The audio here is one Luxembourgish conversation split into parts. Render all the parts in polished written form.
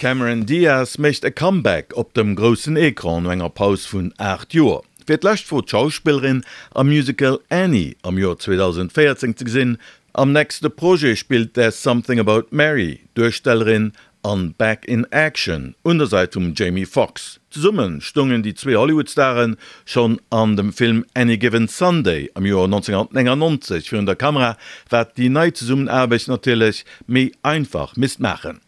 D'Cameron Diaz mécht e Comeback op dem groussen Ecran no enger Paus vun 8 Joer. Fir d'lescht wor d'Schauspillerin am Musical Annie am Joer 2014 ze gesinn. Am nächste Projet spillt There's Something About Mary d'Duerstellerin an Back in Action un der Säit vum Jamie Foxx. Zesumme stoungen déi zwee Hollywood-Stare schonn an dem Film Any Given Sunday am Joer 1999 virun der Kamera, wat déi nei Zesummenaarbecht natierlech méi einfach misst maachen.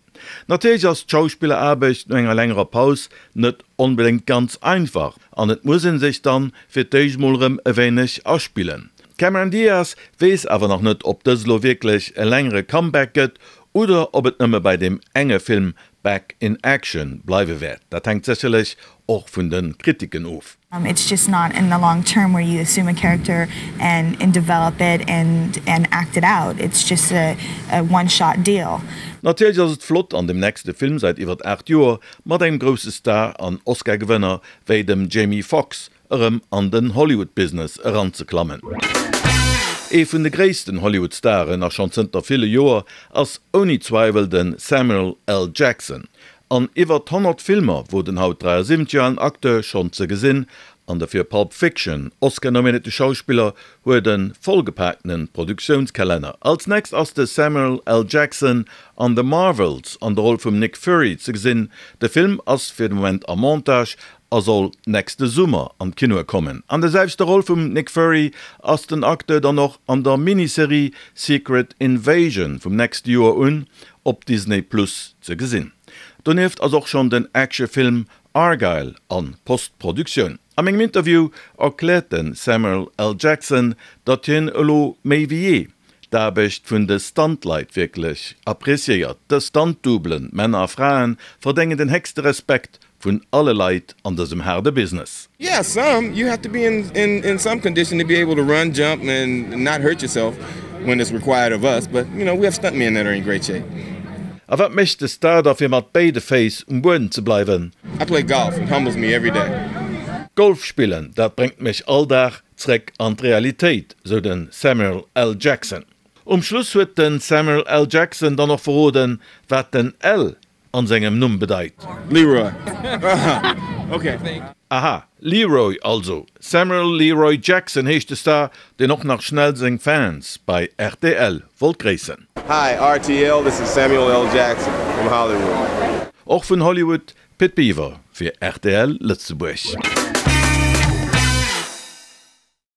Natierlech ass d'Schauspilleraarbecht no enger längerer Paus net onbedéngt ganz einfach an et muss ee sech dann fir d'éischt mol erëm e wéineg aspillen. D'Cameron Diaz weess awer nach net, ob dëst elo wierklech e längere Comeback gëtt oder ob et nëmme bei deem enge Film Back in Action bleiwe wäert. Dat hänkt sécherlech och vun de Kritiken of. It's just not in the long term where you assume a character and and develop it and and act it out. It's just a a one shot deal. Natierlech ass et flott an dem nächste Film säit iwwert 8 Joer mat engem grousse Star an Oscar-Gewënner wéi dem Jamie Foxx erëm an den Hollywood-Business eranzeklammen. Ee vun de gréissten Hollywood-Staren, a schonn zënter ville Joer, ass ouni Zweiwel de Samuel L. Jackson. An iwwert 100 Filmer wor den haut 73 Joer alen Acteur schonn ze gesinn, an de fir Pulp Fiction Oscar-nominéierte Schauspiller huet e vollgepaakte Produktiounskalenner. Als nächst ass de Samuel L. Jackson an The Marvels an der Roll vum Nick Fury ze gesinn. De Film ass fir de Moment am Montage a soll nächste Summer an d'Kinoe kommen. An der selwechter Roll vum Nick Fury ass den Acteur dann och an der Miniserie Secret Invasion vum nächste Joer un op Disney Plus ze gesinn. Donieft ass och schonn den Actionfilm Argylle a Postproduktioun. A mengem Interview erkläert de Samuel L. Jackson, datt hien elo méi wéi jee d'Aarbecht vun de Stunt-Leit wierklech appreciéiert. Dës Stunt-Doublen, Männer a Fraen, verdéngen den héchste Respekt vun alle Leit an dësem haarde Business. Yeah some, you have to be in in in some condition to be able to run, jump and not hurt yourself when it's required of us, but you know we have stunt men that are in great shape. A wat mécht de Star da fir mat béide Féiss um Buedem ze bleiwen? I play golf, it humbles me every day. Golf spillen, dat bréngt mech all Dag zréck an d'Realitéit, sou de Samuel L. Jackson. Um Schluss huet de Samuel L. Jackson dann och verroden, wat den L an sengem Numm bedeit. Leroy. Ok. Aha, Leroy also. Samuel Leroy Jackson heescht de Star, deen och nach schnell seng Fans bei rtl wollt gréissen. Hi rtl, this is Samuel L. Jackson from Hollywood. Och vun Hollywood, Pit Biwer fir rtl Lëtzebuerg.